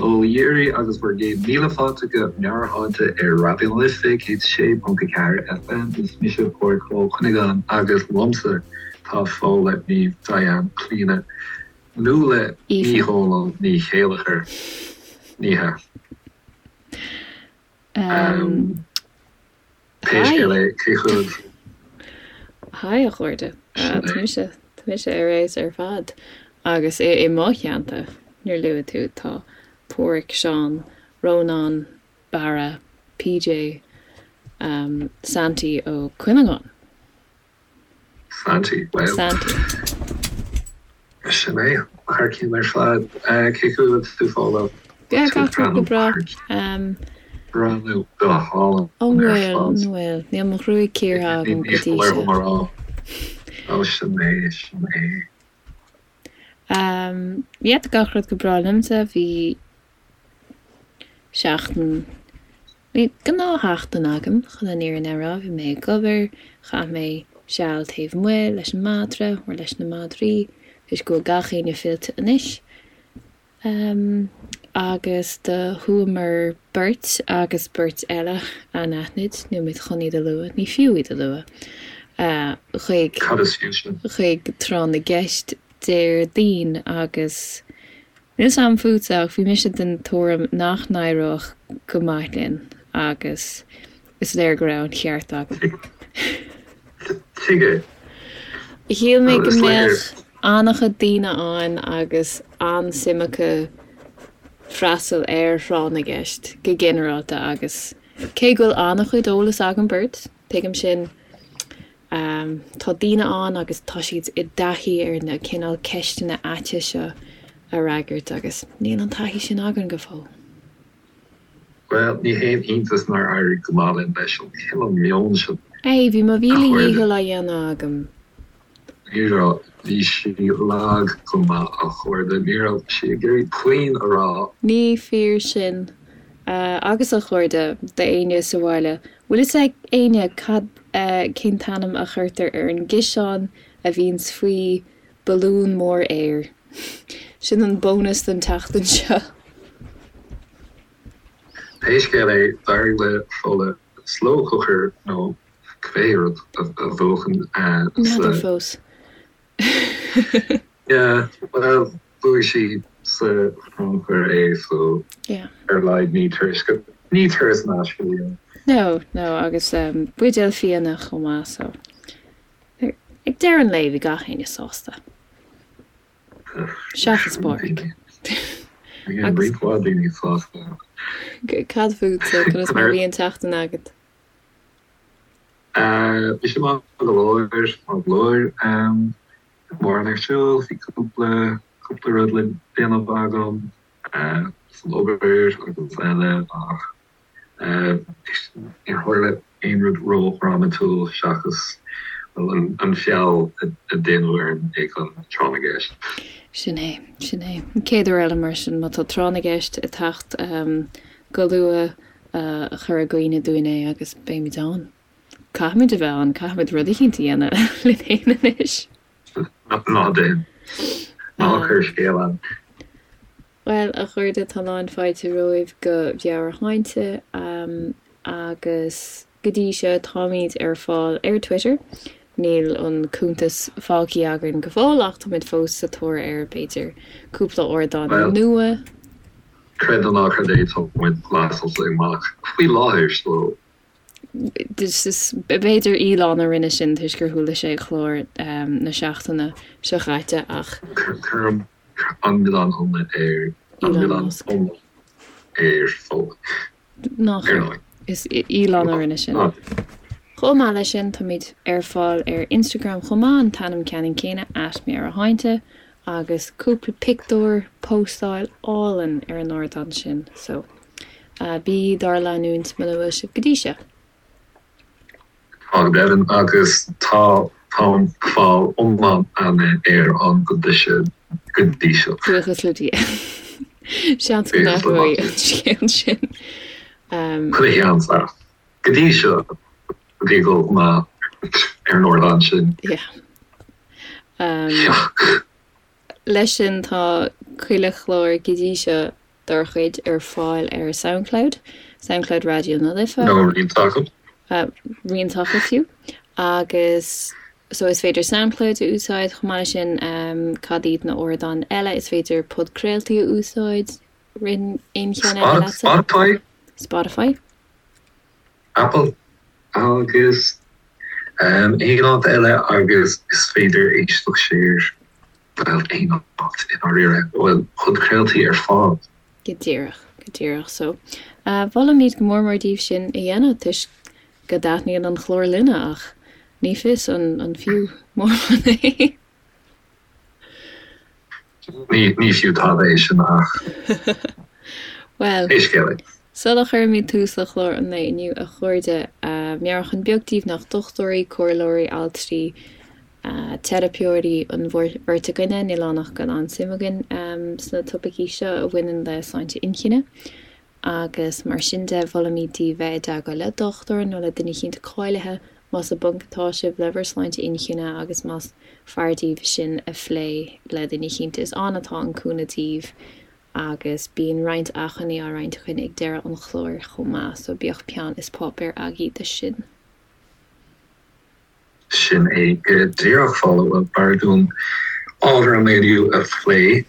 Ó Dhíoraí agus bhur gcéad míle fáilte go Meabhairshláinte ar Raidió na Life 106.4 FM. Is mise Pádraig Ó Cuinneagáin agus liomsa tá Fódhla Niamh Diane Clíona Nuala Ní Dhomhnaill Ní Chéilleachair. Ní hea. Pé scéal é, cén chaoi? Haigh a chairde. Tá mise, tá mise ar fheabhas ar fad. Agus i mo theannta, níor luaigh tú, tá Páraic, Seán, Rónán, Barra, PJ, Santy Ó Cuinneagáin. Santy, bhuel. Santy. Sin é. Thar cionn ar fad. Cén chaoi a bhfuil tú, Fódhla? Yeah, gach rud go breá. Breathnú go hálainn An ar bhfuil, an fad. bhfuil? Níl mo ghruaig cíortha agam go dtí seo. Mar rá. Ó, sin é, sin é. Yeah, tá gach rud go breá liomsa. Bhí seachtain, bhí gnáthsheachtain agam, chun an fhírinne a rá. Bhí mé ag obair, chaith mé seal taobh amuigh leis an madra, or leis na madraí, toisc go bhfuil gach éinne fillte anois. Agus do chuamar beirt agus beirt eile anaithnid, níl muid chun iad a lua, ní fiú iad a lua, chuig, Cad is fiú sin? chuig Tráth na gCeist Déardaoin agus Níl 's a'm fútsa ach bhí mise den tuairim nach n-éireodh go maith linn agus is léir go raibh an cheart agam. Tuige? Shíl mé go mbeadh an-chuid daoine ann agus an-suim acu freastal ar thráth na gceist go ginearálta agus cé go bhfuil an-chuid eolas againn beirt, tuigim sin, Tá daoine ann agus tá siad i dtaithí ar na cineál ceisteanna aite seo a fhreagairt agus níl an taithí sin againn go fóill. Bhuel, ní haon iontas nár éirigh go maith linn leis an chineál meoin sin, Hey, bhí mo mhíle dhícheall á dhéanamh agam. Ní raibh, bhí sí lag go maith a chairde, ní raibh sí ag iarraidh puinn a rá. Ní fíor sin. Agus a chairde, d'éinne sa bhaile, bhfuil fhios ag éinne cad, cén t-ainm a chuirtear ar an gciseán a bhíonns faoi balún mór aeir? Sin an bónas don tseachtain seo. Pé scéal é, d'éirigh le Fódhla slow cooker nó cibé rud a bhuachan N'fheadar fós. Yeah, bhuel, bhuaigh sí sa chrannchur é so Yeah. ar a laghad ní turas go, ní turas in aisce a bhí ann. No, no, agus buidéal fíona chomh maith so ag deireadh an lae bhí gach éinne sásta. Seachas Pádraig. Bhí roinnt mhaith daoine sásta. Cad fútsa, conas mar a bhí an tseachtain agat? Bhí sé maith go leor, maith go leor. Mórán ar siúl, bhí cúpla, cúpla rud le déanamh agam san obair agus eile ach níor tharla aon rud ró-dhrámatúil seachas an feall a déanadh orainn ag an tráth na gceist. Sin é, sin é. An chéad uair eile mar sin, má tá tráth na gceist ag teacht go luath, cuir i gcuimhne dúinn é agus beimid ann. Caithfimid a bheith ann, caithfimid rud eicínt a dhéanamh linn féin anois. Ná déan. Ná cuir scéal ann. Bhuel, a chairde, tá lán fáilte romhaibh go Meabhairshláinte agus go dtí seo táimid ar fáil ar Twitter. Níl an cuntas fágtha againn go fóill ach táimid fós sa tóir ar, b'fhéidir, cúpla ardán nua. Creid nó ná creid é, tá muid glasáilte amach faoi láthair so. B'fhéidir Elon a rinne sin toisc gur chuala sé clár na seachtaine seo chaite ach. Cuirim an milleán iomlán ar an milleán iomlán ar Fódhla. Ná cuir. Is Elon a rinne sin. Chomh maith leis sin, táimid ar fáil ar Instagram chomh maith, an t-ainm ceannann céanna, at Meabhairshláinte, agus cúpla pictiúr, póstáil álainn ar an ardán sin, so bígí dár leanúint muna bhfuil sibh go dtí seo. Tá go deimhin, agus tá táim fáil iomlán aithne ar an go dtí seo go dtí seo. Buíochas le Dia. Seans go n-athróidh an scéal sin. Chuile sheans ach go dtí seo bhí ag dul go maith ar an ardán sin. Yeah. Leis sin tá chuile chlár go dtí seo. dár chuid ar fáil ar Soundcloud, Soundcloud Raidió na Life. Nó roinnt acu. Roinnt acu fiú. Agus so is féidir Soundcloud a úsáid chomh maith leis sin, cad iad na ardáin eile? Is féidir podchraoltaí a úsáid, ritheann aon cheann eile leatsa? Spotify. Spotify. Apple agus aon áit eile agus is féidir éisteacht siar, bhuel, aon áit i ndáiríre a bhfuil podchraoltaí ar fáil. Go díreach, go díreach. So, mholfaimid go mór mór daoibh sin a dhéanamh toisc go dtaitníonn an clár linne ach ní fios an fiú mórán é. Ní fiú tada é sin ach Bhuel, pé scéal é. Sula chuirimid tús le clár an lae inniu, a chairde, meabhrúchán beag daoibh nach dochtúirí, comhairleoirí, altraí, teiripeoirí an bheirt againne, níl ann ach go bhfuil an-suim againn sna topaicí seo a bhaineann le sláinte inchinne. Agus mar sin de, mholfaimid daoibh bheith i dteagmháil le dochtúir nó le duine eicínt cáilithe más i bponc atá sibh le bhur sláinte inchinne agus más fearr daoibh sin a phlé le duine eicínt. Is ann atá an cúnamh daoibh agus bíonn roinnt acmhainní á roinnt againn ag deireadh an chláir chomh maith, so bíodh peann is páipéar agaibh do sin. Sin é go díreach, Fódhla. Bhuel, b'fhearr dúinn ábhar an lae inniu a phlé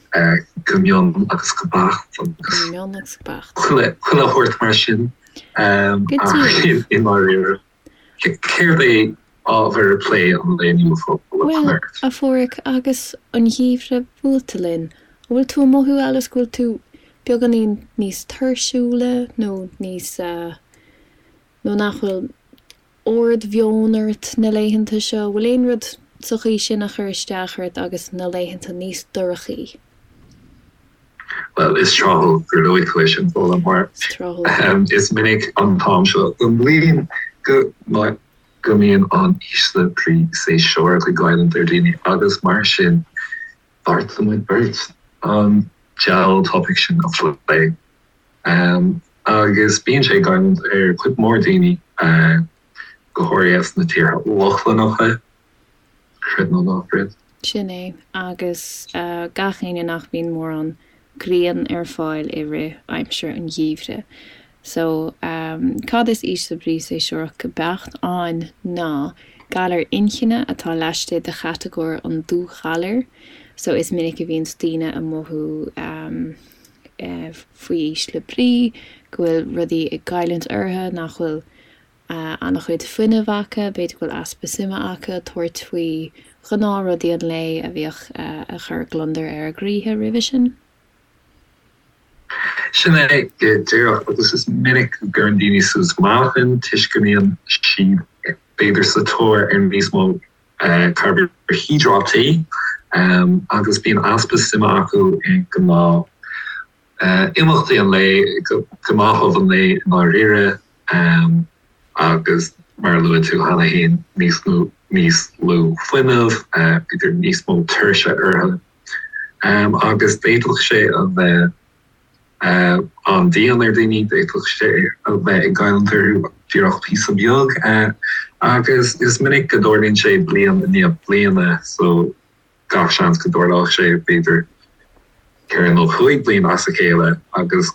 go mion agus go beacht agus Go mion agus go beacht. chuile shórt mar sin. Go Ach díreach. i ndáiríre, céard é ábhar plé an lae inniu, Fódhla? Bhuel, a Pháraic, agus an geimhreadh buailte linn, an bhfuil tú ag mothú abhus go bhfuil tú beagáinín níos tuirsiúla nó níos, nó nach bhfuil ard-mheon ort na laethanta seo? Bhfuil aon rud sa chaoi sin a chuir isteach ort agus na laethanta níos dorchaí? Bhuel, is tráthúil gur luaigh tú é sin, Fódhla, mar is minic an t-am seo den bhliain go go mbíonn an ísle brí séasúrach ag goilliúint ar dhaoine agus mar sin bheartaigh muid beirt an diabhal topaic sin a phlé. Agus bíonn sé ag goilliúint ar chuid mhór daoine, go háirithe sna tíortha Lochlannacha, creid nó ná creid. Sin é, agus gach éinne nach mbíonn mórán grian ar fáil i rith aimsir an gheimhridh. So, cad is ísle brí séasúrach go beacht ann ná galar inchinne atá laistigh de chatagóir an dúghalair. So, is minic a bhíonns daoine ag mothú faoi ísle brí, go bhfuil rudaí ag goilliúint orthu, nach bhfuil an-chuid fuinnimh acu, b'fhéidir go bhfuil easpa suime acu tabhairt faoi ghnáthrudaí an lae a bhíodh ag cur gliondar ar a gcroíthe roimhe sin. Sin é go díreach, agus is minic go gcuireann daoine suas meáchan toisc go mbíonn siad b'fhéidir sa tóir ar níos mó carbaihiodráití agus bíonn easpa suime acu i ngnáth imeachtaí an lae, gnáthamh an lae i ndáiríre agus mar a luaigh tú cheana féin, níos mó, níos lú fuinnimh, b'fhéidir níos mó tuirse orthu agus d'fhéadfadh sé a bheith an-dian ar dhaoine, d'fhéadfadh sé a bheith ag goilliúint orthu díreach píosa beag agus is minic go dtarlaíonn sé bliain i ndiaidh bliana so gach seans go dtarlódh sé b'fhéidir 4 nó 5 bliana as a chéile agus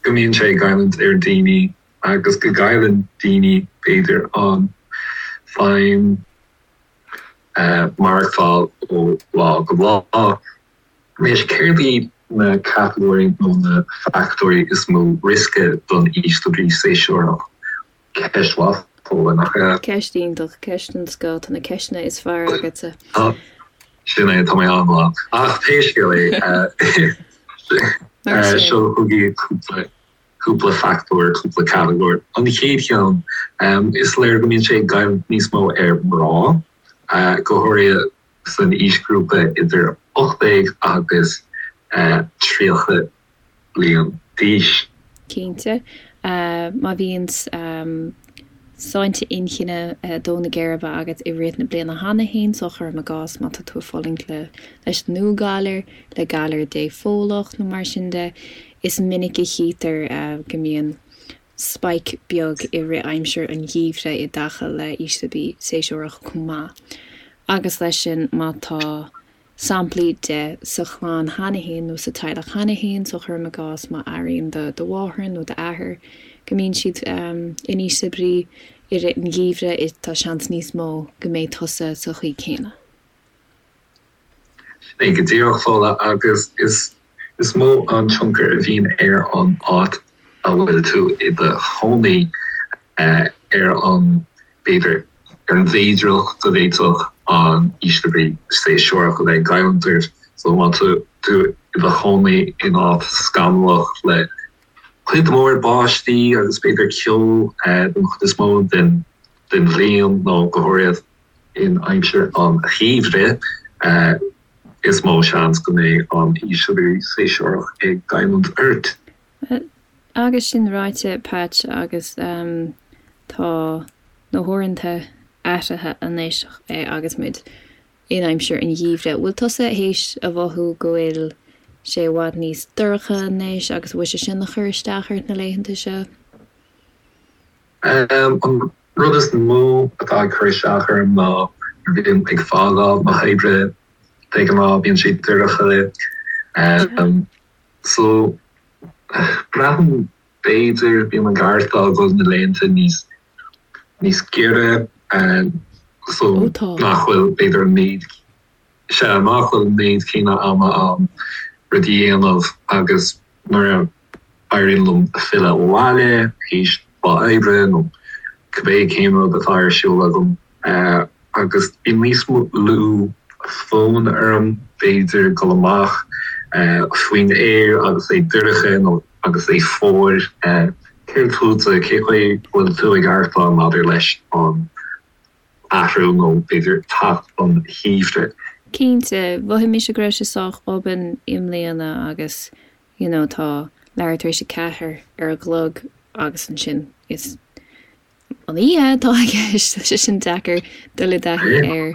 go mbíonn sé ag goilliúint ar dhaoine agus go gcailleann daoine b'fhéidir an feidhm maireachtáil ó lá go lá. Anois, céard iad na catagóirí nó na fachtóirí is mó riosca don ísle brí séasúrach? Ceist mhaith, Fódhla, nach ea? Ceist iontach, ceist den scoth, tá na ceisteanna is fearr agatsa. Sin é, tá mé an-mhaith. Ach pé scéal é, seo chugaibh cúpla cúpla fachtóir, cúpla catagóir. An chéad cheann, is léir go mbíonn sé ag goilliúint níos mó ar mná, go háirithe san aoisghrúpa idir 18 agus 30 bliain d'aois. Cinnte, má bhíonn sláinte inchinne ag dó na geirbe agat i rith na bliana cheana féin, so cuirim i gcás má tá tú ag fulaingt le leis an ndúghalar, le galar dépholach nó mar sin de, is minic a chítear go mbíonn spike beag i rith aimsir an gheimhridh i dtaca le ísle brí séasúrach chomh maith. Agus leis sin, má tá. samplaí de sa chlann cheana féin nó sa teaghlach cheana féin, so cuirim i gcás má airíonn do do mháthair nó d'athair go mbíonn siad in ísle brí i rith an gheimhridh, tá seans níos mó go mbeidh tusa sa chaoi céanna. Sin é go díreach, Fódhla, agus is is mó an tionchar a bhíonn ar an áit a bhfuil tú i do chónaí ar an, b'fhéidir, ar an bhféidearthacht go bhféadfadh an ísle brí séasúrach a bheith ag goilliúint ort. So má tá tú i do chónaí in áit scamallach le cuid mhór báistí agus b'fhéidir ceo don chuid is mó den bhliain nó go háirithe in aimsir an gheimhridh, is mó seans go mbeidh an ísle brí séasúrach ag goilliúint ort. Agus sin ráite, Patch, agus tá na huaireanta athraithe anois agus muid in aimsir an gheimhridh, bhfuil tusa théis a mhothú go bhfuil sé i bhfad níos dorcha anois agus bhfuil sé sin ag cur isteach ort na laethanta seo? An rud is mó atá ag cur isteach orm ná nuair a bhím ag fágáil na hoibre de ghnáth bíonn sé dorcha. So, braithim b'fhéidir, bím ag aireachtáil go bhfuil na laethanta níos níos giorra so nach bhfuil b'fhéidir an méid, sea, nach bhfuil an méid céanna ama ann rudaí a dhéanamh agus nuair a éiríonn liom filleadh abhaile théis lá oibre nó cibé cén rud atá ar siúl agam, agus bíonn níos lú fonn orm, b'fhéidir, dul amach faoin aer agus é dorcha nó agus é fuar. Céard fútsa, cé chaoi bhfuil tú ag aireachtáil maidir leis an athrú nó b'fhéidir teacht an gheimhridh? Cinnte, mhothaigh mise go raibh sé sách obann i mbliana agus you know tá leathuair tar éis a ceathair ar an gclog agus ansin is an oíche atá i gceist, tá sé sin deacair dul i dtaithí air.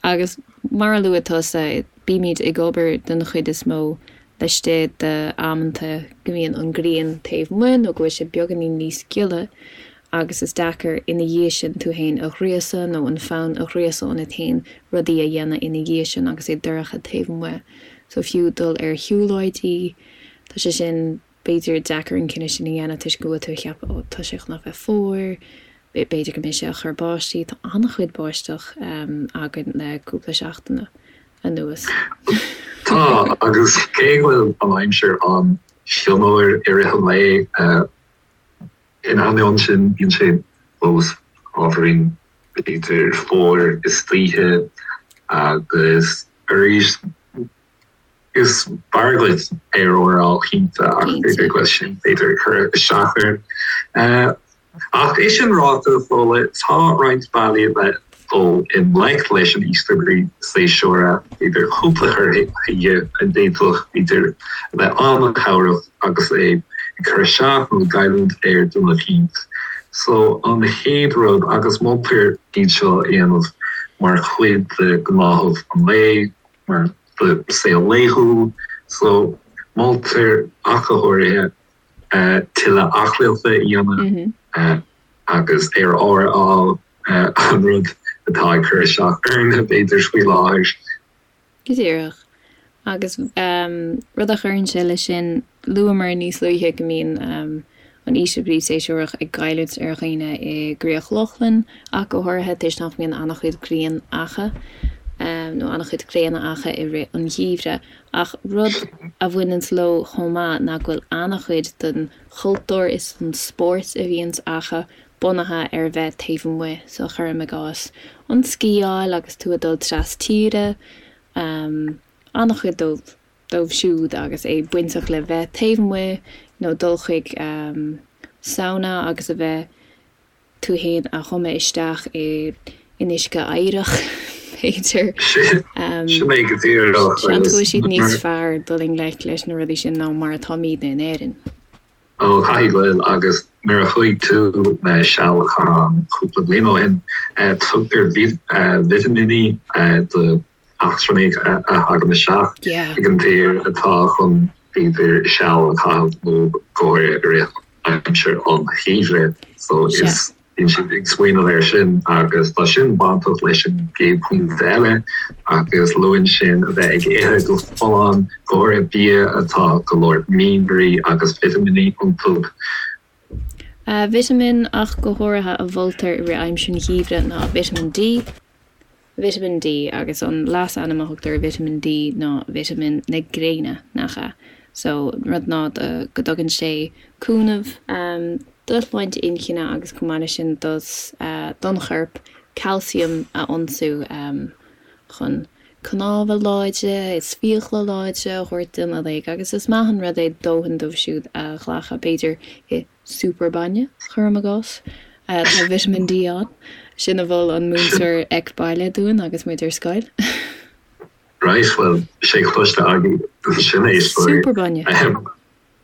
Agus mar a luaigh tusa, bímid ag obair den chuid is mó laistigh d'amanta go mbíonn an ghrian taobh amuigh nó go bhfuil sé beagáinín níos gile agus is deacair ina dhiaidh sin tú féin a ghríosadh nó an fonn a ghríosadh ionat féin rudaí a dhéanamh ina dhiaidh sin agus é dorcha taobh amuigh. So fiú dul ar shiúlóidí, tá sé sin b'fhéidir, deacair an cinneadh sin a dhéanamh toisc go bhfuil tú ag ceapadh 'ó, tá sé chun a bheith fuar, b'fhéidir go mbeidh sé ag cur báistí'. Tá an-chuid báisteach againn le cúpla seachtain anuas. Tá, agus cé go bhfuil an aimsir an-fhionnuar i rith an lae, in ainneoin sin, bíonn sé fós ábhairín, b'fhéidir, fuar istoíche agus arís, Is fearr duit aer úr a fháil cinnte ach b'fhéidir go bhfuil sin b'fhéidir ag cur isteach ort. Ach é sin ráite, Fódhla, tá roinnt bealaí le dul i ngleic leis an ísle brí séasúrach, b'fhéidir cúpla cur chuige a d'fhéadfadh b'fhéidir a bheith an-chabhrach agus é ag cur isteach nó ag goilliúint ar dhuine eicínt. So an chéad rud, agus moltar iad seo a dhéanamh mar chuid de ghnáthamh an lae, mar do saol laethúil so moltar ach go háirithe tuilleadh aclaíochta a dhéanamh agus aer úr a fháil, an rud atá ag cur isteach orainn b'fhéidir faoi láthair. Go díreach. Agus rud a chuireann sé leis sin, luamar níos luaithe go mbíonn an ísle brí séasúrach ag goilliúint ar dhaoine i gCríoch Lochlann ach go háirithe toisc nach mbíonn an-chuid grian acu nó an-chuid gréine acu i rith an gheimhridh. Ach rud a bhaineanns leo chomh maith ná go bhfuil an-chuid den chultúr is den spórt a bhíonns acu bunaithe ar bheith taobh amuigh, so cuirim i gcás an sciáil agus tú ag dul tras tíre, an-chuid dóibh. dóibh siúd agus é bainteach le bheith taobh amuigh nó dul chuig sauna agus a bheith tú fhéin a thumadh isteach i in uisce oighreach, b'fhéidir. Sin é go díreach. Seans go bhfuil siad níos fearr dul i ngleic leis na rudaí sin ná mar atáimidne in Éirinn. Ó, caithfidh go bhfuil, agus nuair a chuaigh tú le seal a chaitheamh ann cúpla bliain ó shin, tugtar vitimíní do eachtrannaigh a thagann isteach ag an tír atá chun b'fhéidir seal a chaitheamh nó go háirithe i rith aimsir an gheimhridh. So is. Bíonn siad ag smaoineamh air sin agus tá sin bainteach leis an gcéad phointe eile agus luann sin a bheith ag ithe go folláin, go háirithe bia atá go leor mianraí agus vitimíní iontu. Vitamin ach go háirithe a mholtar i rith aimsir an gheimhridh ná Vitamin D. Vitamin D, agus an leasainm a thugtar ar Vitamin D ná Vitamin na gréine, nach ea? So, rud ná go dtugann sé cúnamh do shláinte inchinne agus chomh maith leis sin dos, don chorp calcium a ionsú chun cnámha láidre is fiacla láidre a thabhairt dúinn uilig agus is maith an rud é dóthain dóibh siúd a ghlacadh, b'fhéidir i Super bainne, cuirim i gcás. Tá Vitamin D ann. Sin a mhol an múinteoir Ec Baile dúinn agus muid ar scoil. Right, bhuel, sé cloiste agaibh sin é. Super bainne.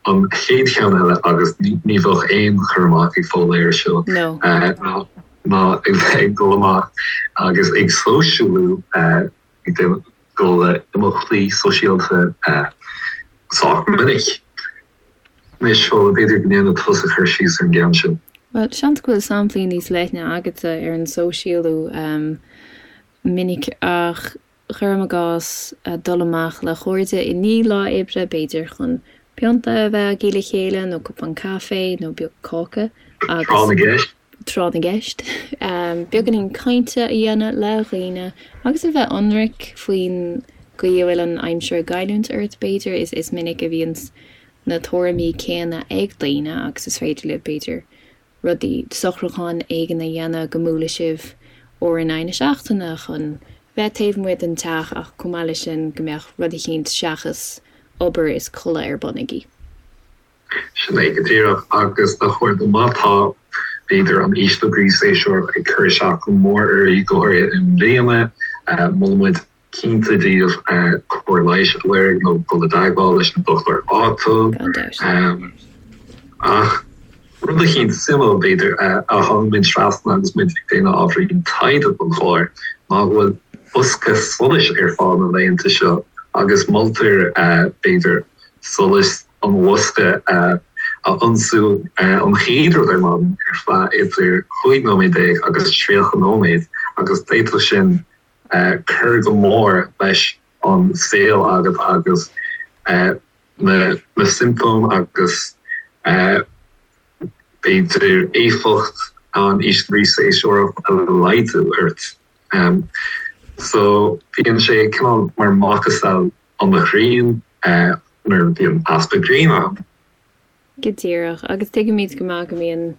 An chéad cheann eile, agus ní bheadh aon chur amach ag Fódhla air seo, ná a bheith ag dul amach agus ag sóisialú, ag dul le imeachtaí sóisialta sách minic. Anois, Fódhla, b'fhéidir go ndéanfaidh tusa cur síos ar an gceann sin. Bhuel, seans go bhfuil samplaí níos leithne agatsa ar an sóisialú minic ach cuirim i gcás dul amach le cairde i ndiaidh lá oibre, b'fhéidir chun pionta a bheith agaibh le chéile nó cupán caife nó beag cáca agus. Tráth na gceist. tráth na gceist, beagáinín cainte a dhéanamh le dhaoine agus a bheith ionraic faoin gcaoi a bhfuil an aimsir ag goilliúint ort, b'fhéidir. Is minic a bhíonns na tuairimí céanna ag daoine agus is féidir libh, b'fhéidir, rudaí, socrúchán éigin a dhéanamh go mbuailfidh sibh uair in aghaidh na seachtaine chun bheith taobh amuigh den teach ach chomh maith leis sin go mbeadh rud eicínt seachas obair is codladh ar bun agaibh. Sin é go díreach. Agus a chairde, má tá, b'fhéidir, an ísle brí séasúrach ag cur isteach go mór oraibh, go háirithe i mbliana, molaimid cinnte daoibh cóir leighis a lorg nó dul i dteagmháil leis an dochtúir áitiúil. Gan dabht. Ach rud eicínt suimiúil, b'fhéidir, a tháinig muid trasna agus muid ag déanamh ábhairín taighde don chlár ná go bhfuil bosca solais ar fáil na laethanta seo agus moltar, b'fhéidir, solas an bhosca a ionsú an chéad rud ar maidin ar feadh idir 15 nóiméad agus 30 nóiméad agus d'fhéadfadh sin cur go mór leis an saol agat agus na siomptóim agus b'fhéidir éifeacht an ísle brí séasúrach a laghdú ort. So bíonn sé cineál mar macasamhail an ghrian nuair a bhíonn easpa gréine ann. Go díreach. Agus tuigimid go maith go mbíonn,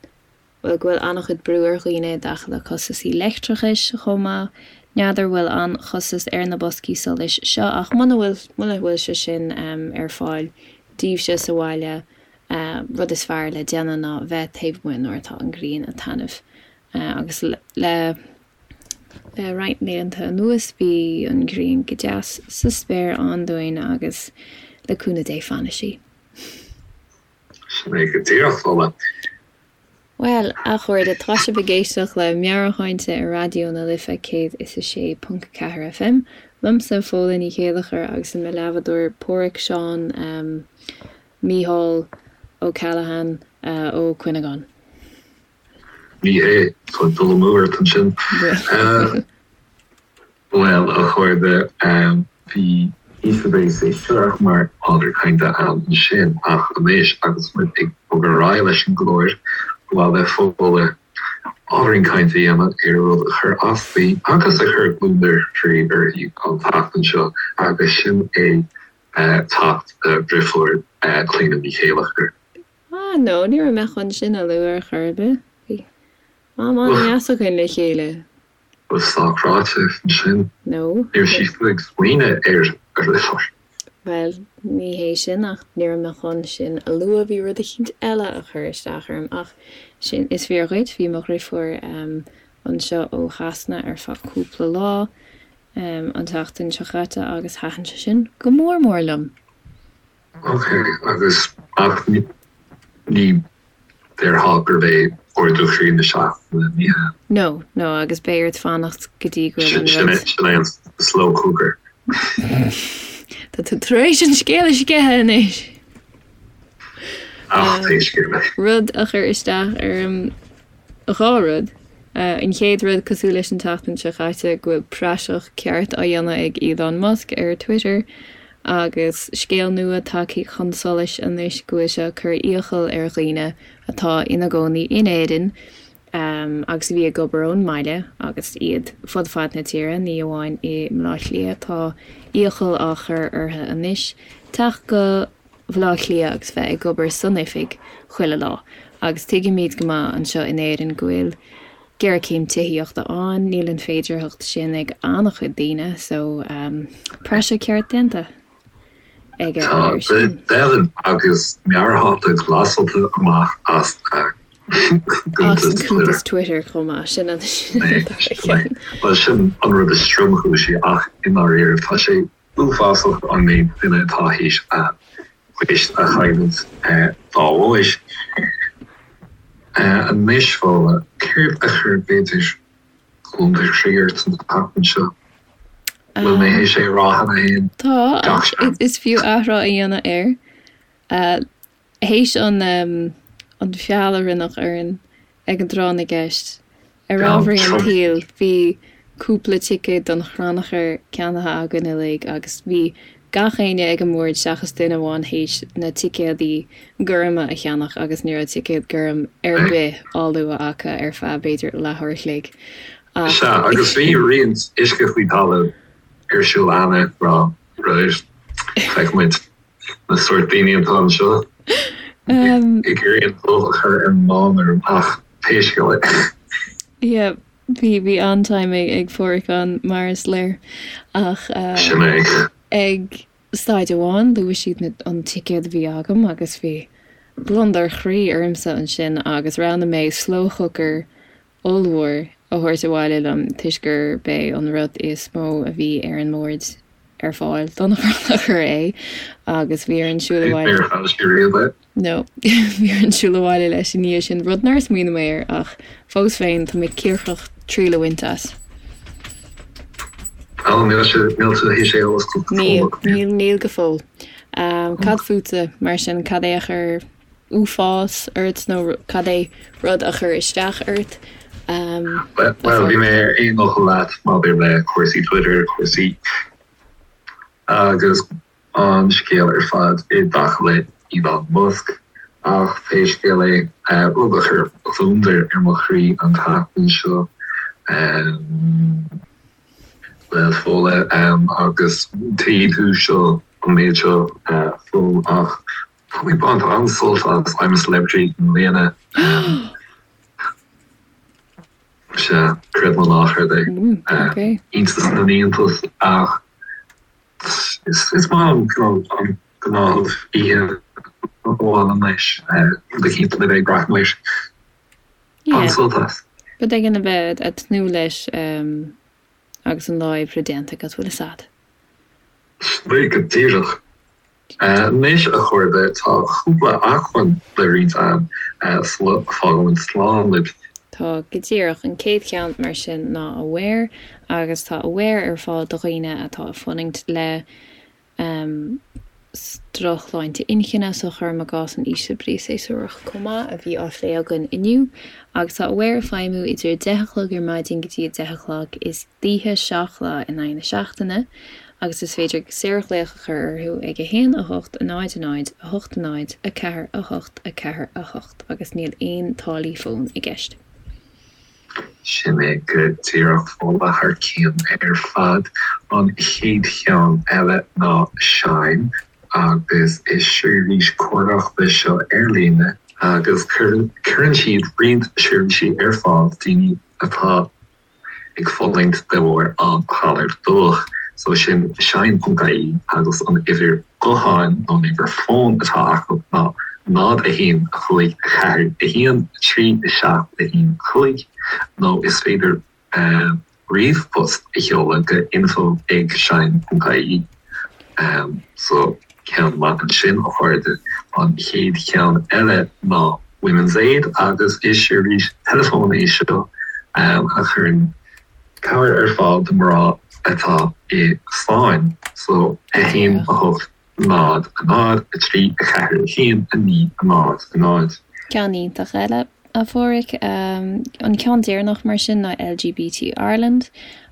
bhuel, go bhfuil an-chuid brú ar dhaoine i dtaca le costasaí leictreachais chomh maith. N'fheadar bhfuil an-chostas ar na boscaí solais seo ach muna bhfuil, muna bhfuil sé sin ar fáil daoibhse sa bhaile, rud is fearr le déanamh ná bheith taobh amuigh nuair atá an ghrian ag taitneamh agus le Le roinnt laethanta anuas bhí an ghrian go deas sa spéir ann dúinn agus le cúnamh Dé fanfaidh sí. Sin é go díreach, Fódhla. Bhuel, a chairde, tá sibh ag éisteacht le Meabhairshláinte ar Raidió na Life 106.4 FM. Liomsa, Fódhla Ní Chéilleachair agus mo leathbhádóir Páraic Seán Mícheál O'Callaghan Ó Cuinneagáin. Ní hé, tá dul amú ort ansin. Bhuel, a chairde, bhí ísle brí séasúrach mar ábhar cainte ann ansin, ach anois agus muid ag bogadh ar aghaidh leis an gclár, ba mhaith le Fódhla ábhairín cainte a dhéanamh ar rud a chuir as di agus a chuir gliondar croí uirthi an tseachtain seo, agus sin é teacht a driofúr, Clíona Ní Chéilleachair. Ah no, ní raibh mé chun sin a lua ar chor ar bith. Bhí am an-deas againn le chéile. Ba sách ráite ansin. No. Ní raibh sí fiú ag smaoineamh ar a dheirfiúr. Bhuel, ní hé sin ach ní raibh mé chun sin a lua, bhí rud eicínt eile a chuir isteach orm ach sin, is fíor dhuit, bhí mo dhriofúr anseo ó Shasana ar feadh cúpla lá an tseachtain seo caite agus thaitin sé sin go mór mór liom. Ok, agus ach ní déarfá gurb é ardú chroí na seachtaine, ní hea? No, no, agus beidh ort fanacht go dtí go bhfuil an rud. Sin é an slow cooker. Tá tú tar éis an scéal a sceitheadh anois! Ach pé scéal é. Rud a chuir isteach orm. 2 rud. An chéad rud, cosúil leis an tseachtain seo chaite, go bhfuil praiseach ceart á dhéanamh ag Elon Musk ar Twitter agus scéal nua tagtha chun solais anois go bhfuil sé ag cur iachall ar dhaoine atá ina gcónaí in Éirinn agus a bhí ag obair ón mbaile agus iad fud fad na tíre, ní amháin i mBleá Cliath, tá iachall á chur orthu anois teacht go Bhleá Cliath agus bheith ag obair san oifig chuile lá. Agus tuigimid go maith anseo in Éirinn go bhfuil géarchéim tithíochta ann, níl an féidearthacht sin ag an-chuid daoine, so praiseach ceart déanta aige air sin. Tá, deimhin, agus meabhairshláinte glasáilte amach as a As an cuntas Twitter chomh maith, sin an dara ceann. Bhuel, sin an rud is tromchúisí ach i ndáiríre tá sé uafásach an méid duine atá théis a bpoist a chailliúint dá bharr. Anois, Fódhla, céard a chuir b'fhéidir gliondar croí ort an tseachtain seo? Bhfuil mé théis é a rá cheana féin? Tá, ach is fiú athrá a dhéanamh air. Théis an an feall a rinneadh orainn ag an dtráth na gceist, ar ámharaí an tsaoil, bhí cúpla ticéad don chrannchur ceannaithe againn uilig agus bhí gach éinne ag an mbord seachas duine amháin théis na ticéadaí gorma a cheannach agus ní raibh ticéad gorm ar bith á lua acu ar feadh b'fhéidir leathuair a chloig. Ach. Sea, agus bhí roinnt uisce faoi talamh ar siúl cheana, rá, right, feicfidh muid. Na sórt daoine atá anseo ag iarraidh an dubh a chur ar an mbán orm ach pé scéal é. Yeah, bhí bhí an-time ag ag Páraic ann mar is léir ach Sin é. ag staid amháin luaigh siad na an ticéad a bhí agam agus bhí gliondar chroí ormsa ansin agus roghnaigh mé slow cooker ollmhór a thabhairt abhaile liom toisc gurb é an rud is mó a bhí ar an mbord ar fáil don chrannchur é agus bhí orainn siúl abhaile. Níor chaith sé riamh é? No, bhí orainn siúl abhaile leis i ndiaidh sin, rud nár smaoinigh mé air ach fós féin tá mé cíocrach triail a bhaint as. Ó, níl sé, níl tú théis é a oscailt go fóill agat? Níl, níl go fóill. Cad fútsa mar sin, cad é a chuir uafás ort nó cad é rud a chuir isteach ort? Bhuel, bhí mé ar aon fhocal leat maidir le cúrsaí Twitter, cúrsaí agus an scéal ar fad i dtaca le Elon Musk. Ach pé scéal é, rud a chuir gliondar ar mo chroí an tseachtain seo, bhuel, Fódhla, agus tuigfidh tú seo, an méid seo, Fódhla, ach Tá mé ag baint an-sult as I'm a Celebrity i mbliana. Sea, creid nó ná creid é. Iontas na n-iontas ach is maith liom an gnáthamh oíche amháin anois rud eicínt le bheith ag breathnú air. An-sult as. Rud éigin a bheith ag tnúth leis agus an lá oibre déanta agat, bhfuil fhios a'd. Go díreach. Anois, a chairde, tá cúpla acmhainn le roinnt a'm sula bhfágaimid slán libh. Tá, go díreach. An chéad cheann, mar sin, ná Aware, agus tá Aware ar fáil do dhaoine atá ag fulaingt le drochshláinte inchinne, so cuirim i gcás an ísle brí séasúrach chomh maith, a bhí á phlé againn inniu. Agus tá Aware ag feidhmiú idir 10 a chlog ar maidin go dtí 10 a chlog istoíche, 7 lá in aghaidh na seachtaine. agus is féidir saorghlaoch a chur orthu ag 1 8 0 0 8 0 4 8 4 8 agus níl aon táillí fóin i gceist. Sin é go díreach Fódhla thar cionn ar fad. An chéad cheann eile ná Shine agus is seirbhís cócaireachta seo ar líne agus cuireann siad roinnt seirbhísí ar fáil daoine atá ag fulaingt de bharr an ghalair dubhach. So sin shine.ie agus an uimhir gutháin nó an uimhir fóin atá acu ná 0 1 5 4 1 3 7 1 5 nó is féidir ríomhphost a sheoladh go info ag shine.ie. So ceann maith ansin a chairde. An chéad cheann eile ná Women's Aid agus is seirbhís teileafóin é seo a chuireann cabhair ar fáil do mná atá i sáinn. So 1 8 0 0 3 4 1 9 0 0. Ceann iontach eile. a Pháraic. An ceann deireanach mar sin ná LGBT Ireland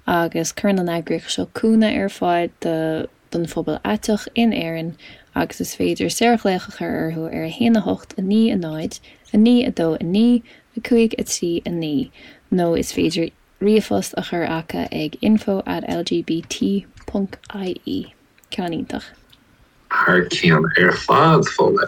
agus cuireann an eagraíocht seo cúnamh ar fáil do don phobal aiteach in Éirinn agus is féidir saorghlaoch a chur orthu ar 1 8 9 0 9 2 9 5 3 9 nó is féidir ríomhphost a chur acu ag info at lgbt ponc ie. Ceann iontach. Thar cionn ar fad, Fódhla.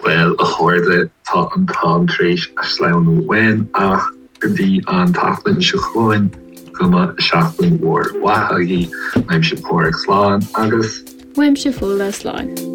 Bhuel, a chairde, tá an t-am tar éis sleamhnú uainn ach go dtí an tseachtain seo chugainn, go mba seachtain mhór mhaith agaibh. Uaimse Páraic, slán agus. Uaimse Fódhla, slán.